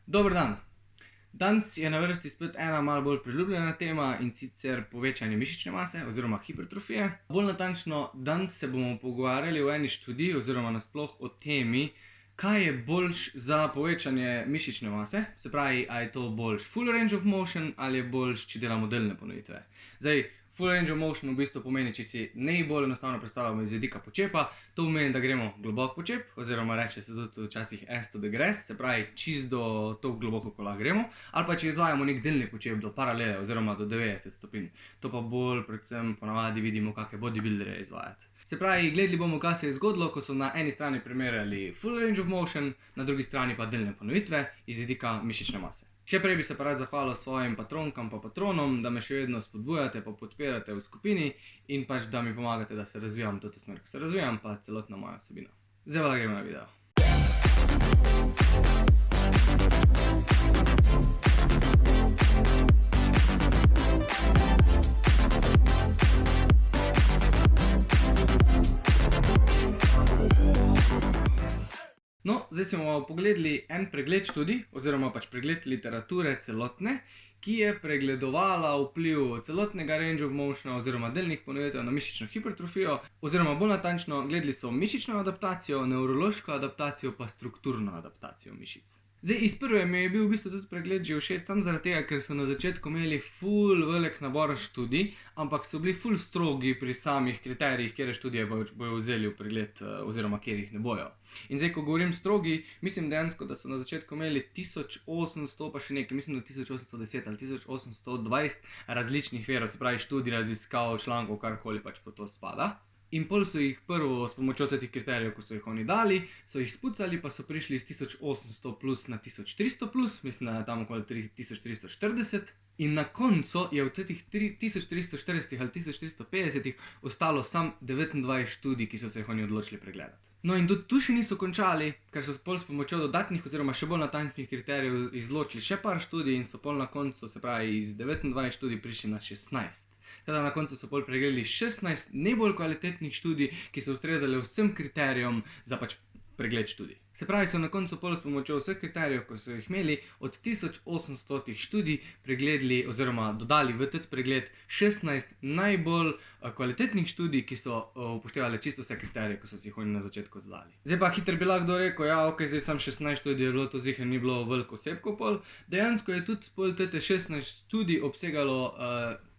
Dober dan. Danes je na vrsti spet ena malo bolj priljubljena tema, in sicer povečanje mišične mase oziroma hipertrofije. Bolj natančno, danes se bomo pogovarjali o eni študiji oziroma nasploh o temi, kaj je boljš za povečanje mišične mase. Se pravi, a je to boljš full range of motion ali je boljš, če delamo delne ponovitve. Zdaj, full range of motion v bistvu pomeni, če si najbolj enostavno predstavljamo iz vidika počepa, to pomeni, da gremo globok počep, oziroma reče se tudi včasih as to the grass, se pravi čist do toliko globoko, ko lahko gremo, ali pa če izvajamo nek delni počep do paralele oziroma do 90 stopinj. To pa bolj predvsem ponavadi vidimo kakšne bodybuilderje izvajati. Se pravi, gledali bomo, kaj se je zgodilo, ko so na eni strani primerjali full range of motion, na drugi strani pa delne ponovitve iz vidika mišične mase. Še prej bi se pa rad zahvalil svojim patronkam pa patronom, da me še vedno spodbujate pa podpirate v skupini in pač da mi pomagate, da se razvijam v to smer, ko se razvijam, pa celotna moja vsebina. Zdaj pa gremo na video. No, zdaj si bomo pogledali en pregled študij, oziroma pač pregled literature celotne, ki je pregledovala vpliv celotnega range of motiona oziroma delnih ponovitev na mišično hipertrofijo, oziroma bolj natančno, gledali so mišično adaptacijo, nevrološko adaptacijo pa strukturno adaptacijo mišic. Zdaj, iz prve mi je bil v bistvu tudi pregled že všeč, samo zaradi tega, ker so na začetku imeli ful velik nabor študij, ampak so bili ful strogi pri samih kriterijih, katere študije bojo vzeli v pregled oziroma katerih ne bojo. In zdaj, ko govorim strogi, mislim dejansko, da so na začetku imeli 1800 pa še nekaj, mislim, da 1810 ali 1820 različnih virov, se pravi študij, raziskav, člankov, karkoli pač po to spada. In pol so jih prvo s pomočjo teh kriterijev, ko so jih oni dali, so jih spucali, pa so prišli iz 1800 plus na 1300 plus, mislim, da je tam okoli 1340. In na koncu je v teh 1340 ali 1350 ostalo sam 29 študij, ki so se jih oni odločili pregledati. No, in tudi tu še niso končali, ker so pol s pomočjo dodatnih oziroma še bolj natančnih kriterijev izločili še par študij in so pol na koncu, se pravi, iz 29 študij prišli na 16. Teda na koncu so pol pregledali 16 najbolj kvalitetnih študij, ki so ustrezali vsem kriterijem za pač pregled študij. Se pravi, so na koncu pol s pomočjo vseh kriterijev, ko so jih imeli, od 1800 študij pregledali oziroma dodali v teti pregled 16 najbolj kvalitetnih študij, ki so upoštevali čisto vse kriterije, ko so si jih oni na začetku zadali. Zdaj pa hitro bi lahko rekel, ja, ok, zdaj sam 16 študij je bilo, to ziher ni bilo veliko osebkov pol. Dejansko je tudi pol tete 16 študij obsegalo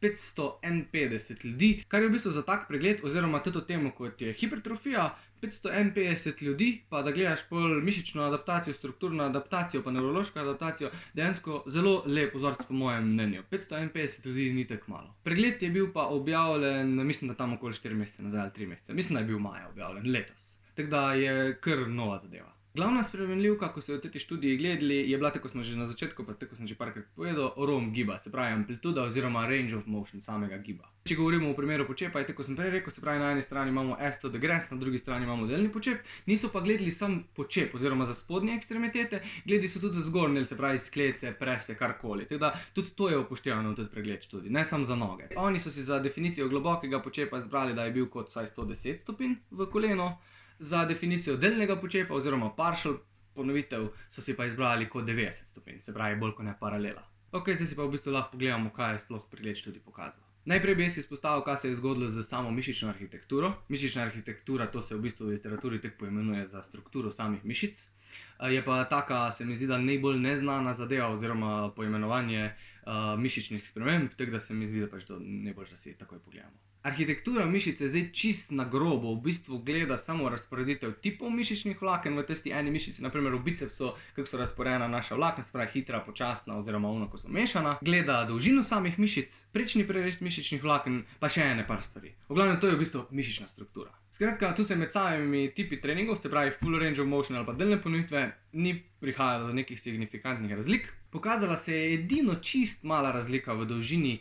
551 ljudi, kar je v bistvu za tak pregled oziroma toto temo, kot je hipertrofija, 551 ljudi, pa da gledaš pol mišično adaptacijo, strukturno adaptacijo pa nevrološko adaptacijo, dejansko zelo lep vzorec po mojem mnenju. 551 ljudi ni tako malo. Pregled je bil pa objavljen, mislim, da tam okoli 4 mesece nazaj ali 3 mesece. Mislim, da je bil maja objavljen, letos. Tako da je kar nova zadeva. Glavna spremenljivka, ko so v tej študiji gledali, je bila, tako smo že na začetku, pa tako sem že parkrat povedal, ROM giba, se pravi amplituda oziroma range of motion samega giba. Če govorimo v primeru počepa, je tako sem prej rekel, se pravi, na eni strani imamo as to the grass, na drugi strani imamo delni počep, niso pa gledali sam počep oziroma za spodnje ekstremitete, gledali so tudi za zgornje, se pravi sklece, prese, karkoli. Tako da tudi to je upoštevano v tudi pregled študij, ne samo za noge. Oni so si za definicijo globokega počepa izbrali, da je bil kot vsaj 110 stopinj v koleno. Za definicijo delnega počepa oziroma partial ponovitev so si pa izbrali kot 90 stopinj, se pravi bolj kot ne paralela. Ok, zdaj si pa v bistvu lahko pogledamo, kaj je sploh pregled študij pokazal. Najprej bi jaz izpostavil, kaj se je zgodilo z samo mišično arhitekturo. Mišična arhitektura, to se v bistvu v literaturi tako poimenuje za strukturo samih mišic. Je pa taka, se mi zdi, da najbolj neznana zadeva oziroma poimenovanje mišičnih sprememb, tako da se mi zdi, da pač to najbolj, da si takoj pogledamo. Arhitektura mišice zdaj čist na grobo v bistvu gleda samo razporeditev tipov mišičnih vlaken v tisti eni mišici, naprimer v bicepsu, kako so razporejena naša vlakna, se pravi hitra, počasna oziroma ono, ko so mešana. Gleda dolžino samih mišic, prečni prerez mišičnih vlaken, pa še ene par stvari. V glavnem, to je v bistvu mišična struktura. Skratka, tu se med samimi tipi treningov, se pravi full range of motion ali pa delne ponovitve, ni prihajalo do nekih signifikantnih razlik. Pokazala se je edino čist mala razlika v dolžini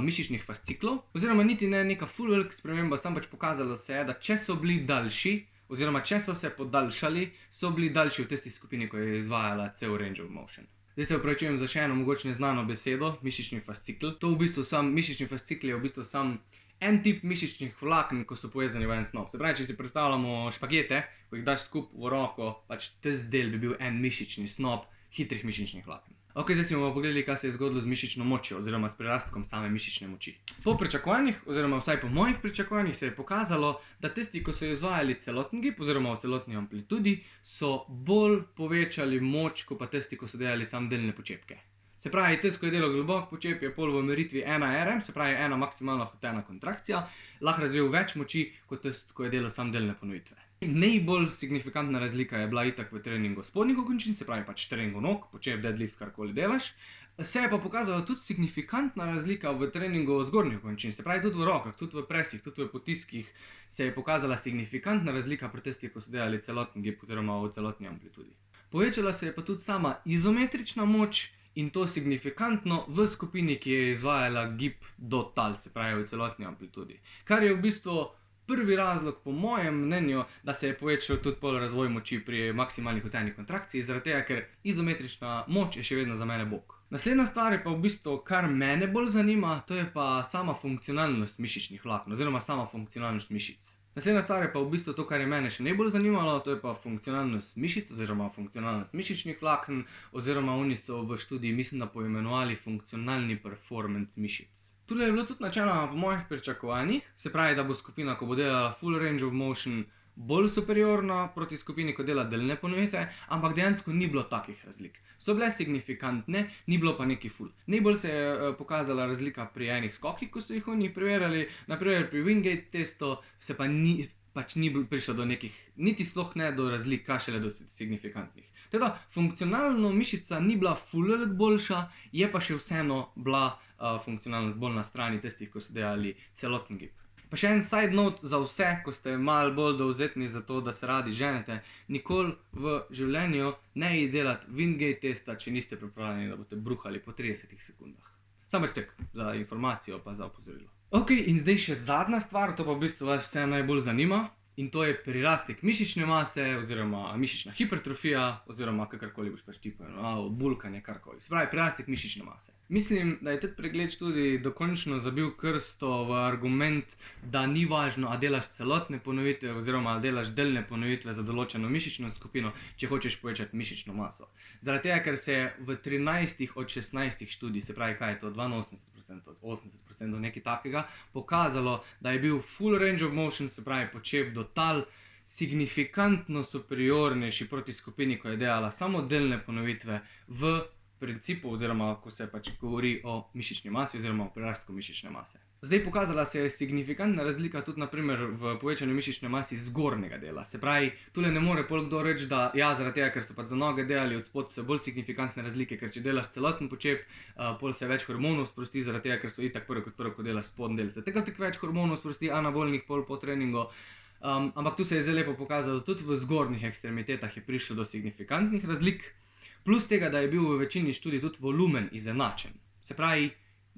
mišičnih fasciklov, oziroma niti ne neka full velika sprememba, samo pač pokazalo se je, da če so bili daljši, oziroma če so se podaljšali, so bili daljši v tisti skupini, ko je izvajala cel range of motion. Zdaj se opravičujem za še eno mogoče neznano besedo, mišični fascikl. To v bistvu mišični fascikl je v bistvu sam en tip mišičnih vlaken, ko so povezani v en snop. Se pravi, če si predstavljamo špagete, ko jih daš skupaj v roko, pač tisti del bi bil en mišični snop, hitrih mišičnih vlaken. Ok, zdaj si bomo pogledali, kaj se je zgodilo z mišično močjo oziroma s prirastkom same mišične moči. Po pričakovanjih, oziroma vsaj po mojih pričakovanjih, se je pokazalo, da tisti, ko so izvajali celoten gib oziroma v celotni amplitudi, so bolj povečali moč, kot pa tisti, ko so delali samo delne počepke. Se pravi, tisti, ko je delal globok počep, je pol v meritvi 1 RM, se pravi 1 maksimalno hotena kontrakcija, lahko razvil več moči, kot tisti, ko je delal samo delne ponovitve. Najbolj signifikantna razlika je bila itak v treningu spodnjih končin, se pravi pač treningu nog, počep, deadlift, karkoli delaš. Se je pa pokazala tudi signifikantna razlika v treningu zgornjih končin, se pravi tudi v rokah, tudi v presih, tudi v potiskih se je pokazala signifikantna razlika pri tistih, ko so delali celoten gib oziroma v celotni amplitudi. Povečala se je pa tudi sama izometrična moč in to signifikantno v skupini, ki je izvajala gib do tal, se pravi v celotni amplitudi. Kar je v bistvu prvi razlog, po mojem mnenju, da se je povečal tudi pol razvoj moči pri maksimalnih hoteni kontrakciji, zaradi tega, ker izometrična moč je še vedno za mene bog. Naslednja stvar je pa v bistvu, kar mene bolj zanima, to je pa sama funkcionalnost mišičnih vlaken oziroma sama funkcionalnost mišic. Naslednja stvar je pa v bistvu to, kar je mene še najbolj zanimalo, to je pa funkcionalnost mišic oziroma funkcionalnost mišičnih vlaken oziroma oni so v študiji, mislim, da poimenovali funkcionalni performance mišic. Tule je bilo tudi načeloma po mojih pričakovanjih, se pravi, da bo skupina, ko bo delala full range of motion, bolj superiorna proti skupini, ko dela delne ponovitve, ampak dejansko ni bilo takih razlik. So bile signifikantne, ni bilo pa neki full. Najbolj se je pokazala razlika pri enih skokih, ko so jih oni preverjali, naprimer pri Wingate testu se pa ni prišlo do nekih, niti sploh ne do razlik, kaj šele do signifikantnih. Teda, funkcionalno mišica ni bila full boljša, je pa še vseeno bila funkcionalnost bolj na strani tistih, ko so delali celoten gib. Pa še en side note za vse, ko ste malo bolj dovzetni za to, da se radi ženete, nikoli v življenju ne delati Wingate testa, če niste pripravljeni, da boste bruhali po 30 sekundah. Samo tek za informacijo pa za opozorilo. Ok, in zdaj še zadnja stvar, to pa v bistvu vas vse najbolj zanima. In to je prirastek mišične mase oziroma mišična hipertrofija oziroma kakorkoli boš pač ti poimenoval, bulkanje, karkoli. Se pravi, prirastek mišične mase. Mislim, da je tudi pregled študij dokončno zabil krsto v argument, da ni važno, a delaš celotne ponovitve oziroma a delaš delne ponovitve za določeno mišično skupino, če hočeš povečati mišično maso. Zaradi tega, ker se je v 13 od 16 študij, se pravi, kaj je to, 82% od 80% nekaj takega, pokazalo, da je bil full range of motion, se pravi, počep do tal, signifikantno superiornejši proti skupini, ko je delala samo delne ponovitve v principu oziroma, ko se pač govori o mišični masi oziroma o prirastku mišične mase. Zdaj pokazala se je signifikantna razlika tudi naprimer v povečanju mišične masi zgornjega dela. Se pravi, tule ne more pol kdo reči, da ja, zaradi tega, ker so pač za noge delali od spod so bolj signifikantne razlike, ker če delaš celoten počep, pol se več hormonov sprosti, zaradi tega, ker so itak prvo, ko delaš spodnji del, se tega tako več hormonov sprosti, anabolnih pol po treningu. Ampak tu se je zelo lepo pokazalo, tudi v zgornjih ekstremitetah je prišlo do signifikantnih razlik, plus tega, da je bil v večini študij tudi volumen izenačen. Se pravi,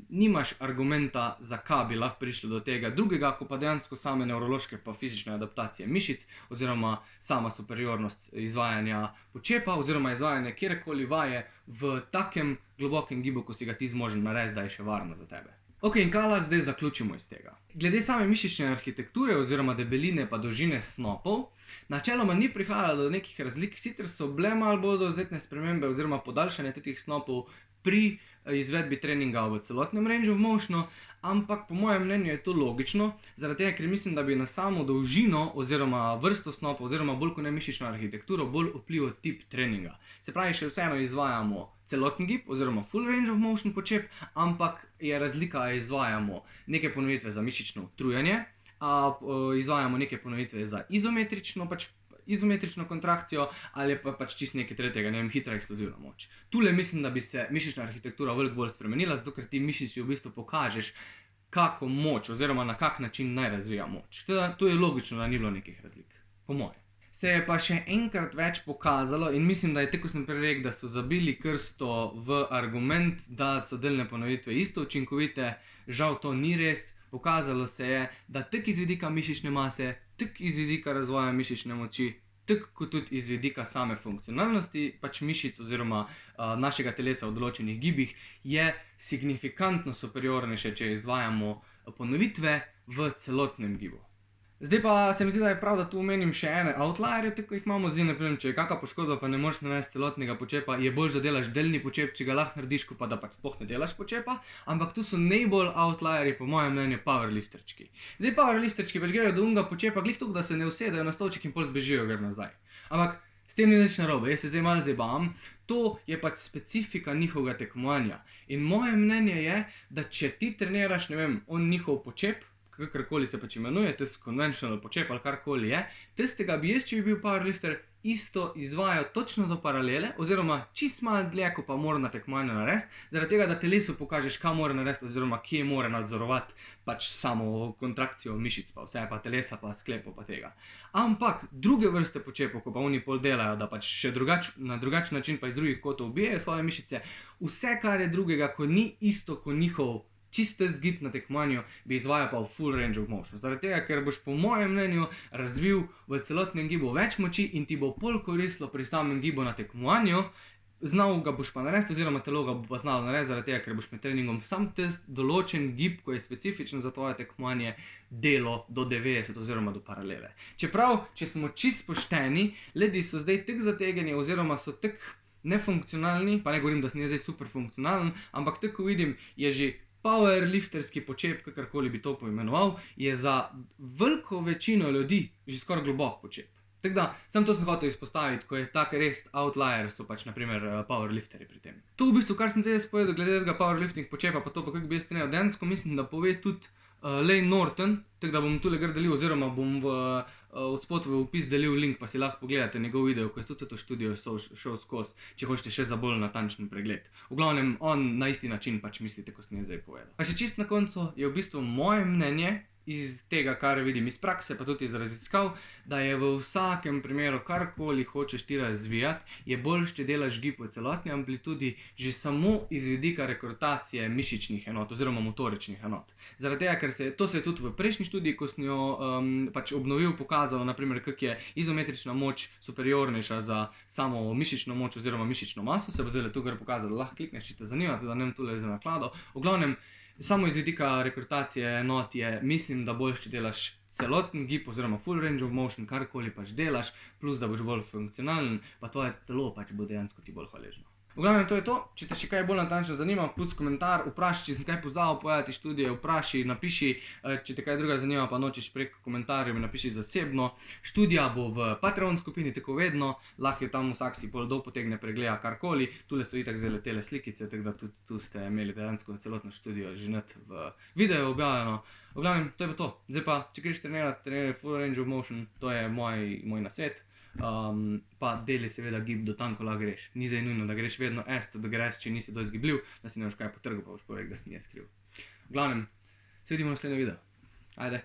nimaš argumenta, zakaj bi lahko prišlo do tega drugega, ko pa dejansko same nevrološke pa fizične adaptacije mišic oziroma sama superiornost izvajanja počepa oziroma izvajanja kjerkoli vaje v takem globokem gibu, ko si ga ti zmožen narediti, da je še varno za tebe. Ok, in kaj lahko zdaj zaključimo iz tega? Glede same mišične arhitekture oziroma debeline pa dolžine snopov, načeloma ni prihajalo do nekih razlik, sicer so bile malo bolj dovzetne spremembe oziroma podaljšanje teh snopov pri izvedbi treninga v celotnem range of motionu, ampak po mojem mnenju je to logično, zaradi tega, ker mislim, da bi na samo dolžino oziroma vrsto snopov oziroma bolj kot ne mišično arhitekturo bolj vplival tip treninga. Se pravi, še vseeno izvajamo celoten gib oziroma full range of motion počep, ampak je razlika, izvajamo neke ponovitve za mišično utrujanje, izvajamo neke ponovitve za izometrično kontrakcijo ali pa pač čisto nekaj tretjega, ne vem, hitra eksplozivna moč. Tule mislim, da bi se mišična arhitektura veliko bolj spremenila, zato ker ti mišici v bistvu pokažeš, kako moč oziroma na kak način naj razvija moč. Teda, to je logično, da ni bilo nekih razlik, po moje. Se je pa še enkrat več pokazalo in mislim, da je tako sem prej rekel, da so zabili krsto v argument, da so delne ponovitve isto učinkovite, žal to ni res. Pokazalo se je, da tako iz vidika mišične mase, tako iz vidika razvoja mišične moči, tako kot tudi iz vidika same funkcionalnosti pač mišic oziroma našega telesa v določenih gibih, je signifikantno superiornejše, če izvajamo ponovitve v celotnem gibu. Zdaj pa se mi zdi, da je prav, da tu omenim še ene outlierje, tako jih imamo. Zdaj, ne vem, če je kakšna poškodba, pa ne moreš narediti celotnega počepa, je bolj, da delaš delni počep, če ga lahko narediš, ko pa da pač sploh ne delaš počepa. Ampak tu so najbolj outlierji, po mojem mnenju, powerlifterčki. Zdaj, powerlifterčki pač grejo do unga počepa, glih tako, da se ne usedejo na stolček in pol zbežijo gor nazaj. Ampak s tem ni nič narobe, jaz se zdaj malo zabavam. To je pač specifika njihovega tekmovanja. In moje mnenje je, da če ti treniraš, ne vem, on njihov počep, kakorkoli se pač imenuje, tisti conventional počep ali karkoli je, tistega bi jaz, če bi bil powerlifter, isto izvajal točno do paralele, oziroma čist malo dlje, ko pa mora na tekmovanju narediti, zaradi tega, da telesu pokažeš, kaj mora narediti, oziroma kje mora nadzorovati pač samo kontrakcijo mišic, pa vse, pa telesa, pa sklepov, pa tega. Ampak druge vrste počepov, ko pa oni pol delajo, da pač še na drugačen način pa iz drugih kotov ubijajo svoje mišice, vse, kar je drugega, ko ni isto kot njihov čist test gib na tekmovanju, bi izvajal pa v full range of motion. Zaradi tega, ker boš po mojem mnenju razvil v celotnem gibu več moči in ti bo pol koristilo pri samem gibu na tekmovanju, znal ga boš pa narediti, oziroma telo ga bo pa znalo narediti, zaradi tega, ker boš med treningom sam test določen gib, ko je specifičen za tvoje tekmovanje, delo do 90 oziroma do paralele. Čeprav, če smo čist pošteni, ljudje so zdaj tako zategeni oziroma so tako nefunkcionalni, pa ne govorim, da sem zdaj super funkcionalen, ampak tako vidim, je že powerlifterski počep, kakorkoli bi to poimenoval, je za veliko večino ljudi že skoraj globok počep. Tako da, sam to sem hotel izpostaviti, ko je tak res outlier, so pač naprimer powerlifteri pri tem. To v bistvu, kar sem zdaj povedal glede tega powerlifting počepa, pa to pa kako bi jaz treniral dejansko, mislim, da pove tudi Layne Norton, tako da bom tule gor delil, oziroma bom od spod v opis delil link, pa si lahko pogledate njegov video, ko je tudi to študijo šel skozi, če hočete še za bolj natančen pregled. V glavnem, on na isti način pač mislite, kot sem jaz zdaj povedal. Pa še čist na koncu je v bistvu moje mnenje, iz tega, kar vidim iz prakse, pa tudi iz raziskav, da je v vsakem primeru, karkoli hočeš ti razvijati, je boljše, če delaš gib v celotni amplitudi, že samo iz vidika rekrutacije mišičnih enot oziroma motoričnih enot. Zaradi tega, ker to se je tudi v prejšnji študiji, ko sem jo pač obnovil, pokazalo, naprimer, kako je izometrična moč superiornejša za samo mišično moč oziroma mišično maso, se bo zdaj tu gor pokazalo, lahko klikneš, če te zanima, da ne vem tule za naklado. V glavnem, samo iz vidika rekrutacije enot je, mislim, da boljše, če delaš celoten gib oziroma full range of motion, karkoli pač delaš, plus da boš bolj funkcionalen, pa tvoje telo pač bo dejansko ti bolj hvaležno. V glavnem, to je to. Če te še kaj bolj natančno zanima, plus komentar, vprašaj, če sem kaj pozabil povedati študije, vprašaj, napiši, če te kaj druga zanima, pa nočeš prek komentarjev, mi napiši zasebno. Študija bo v Patreon skupini, tako vedno, lahko je tam vsak si pol dol potegne, pregleda karkoli, tule so itak zdaj letele slikice, tako da tudi tu ste imeli dejansko celotno študijo že net v videu objavljeno. V glavnem, to je pa to. Zdaj pa, če greš treniraj full range of motion, to je moj nasvet. Pa deli seveda gib do tam, ko lahko greš. Ni zdaj nujno, da greš vedno da greš, če nisi dosti gibljiv, da si ne boš kaj potrgal, pa boš povedal, da si nje skriv. V glavnem, se vidimo v naslednjem videu. Ajde.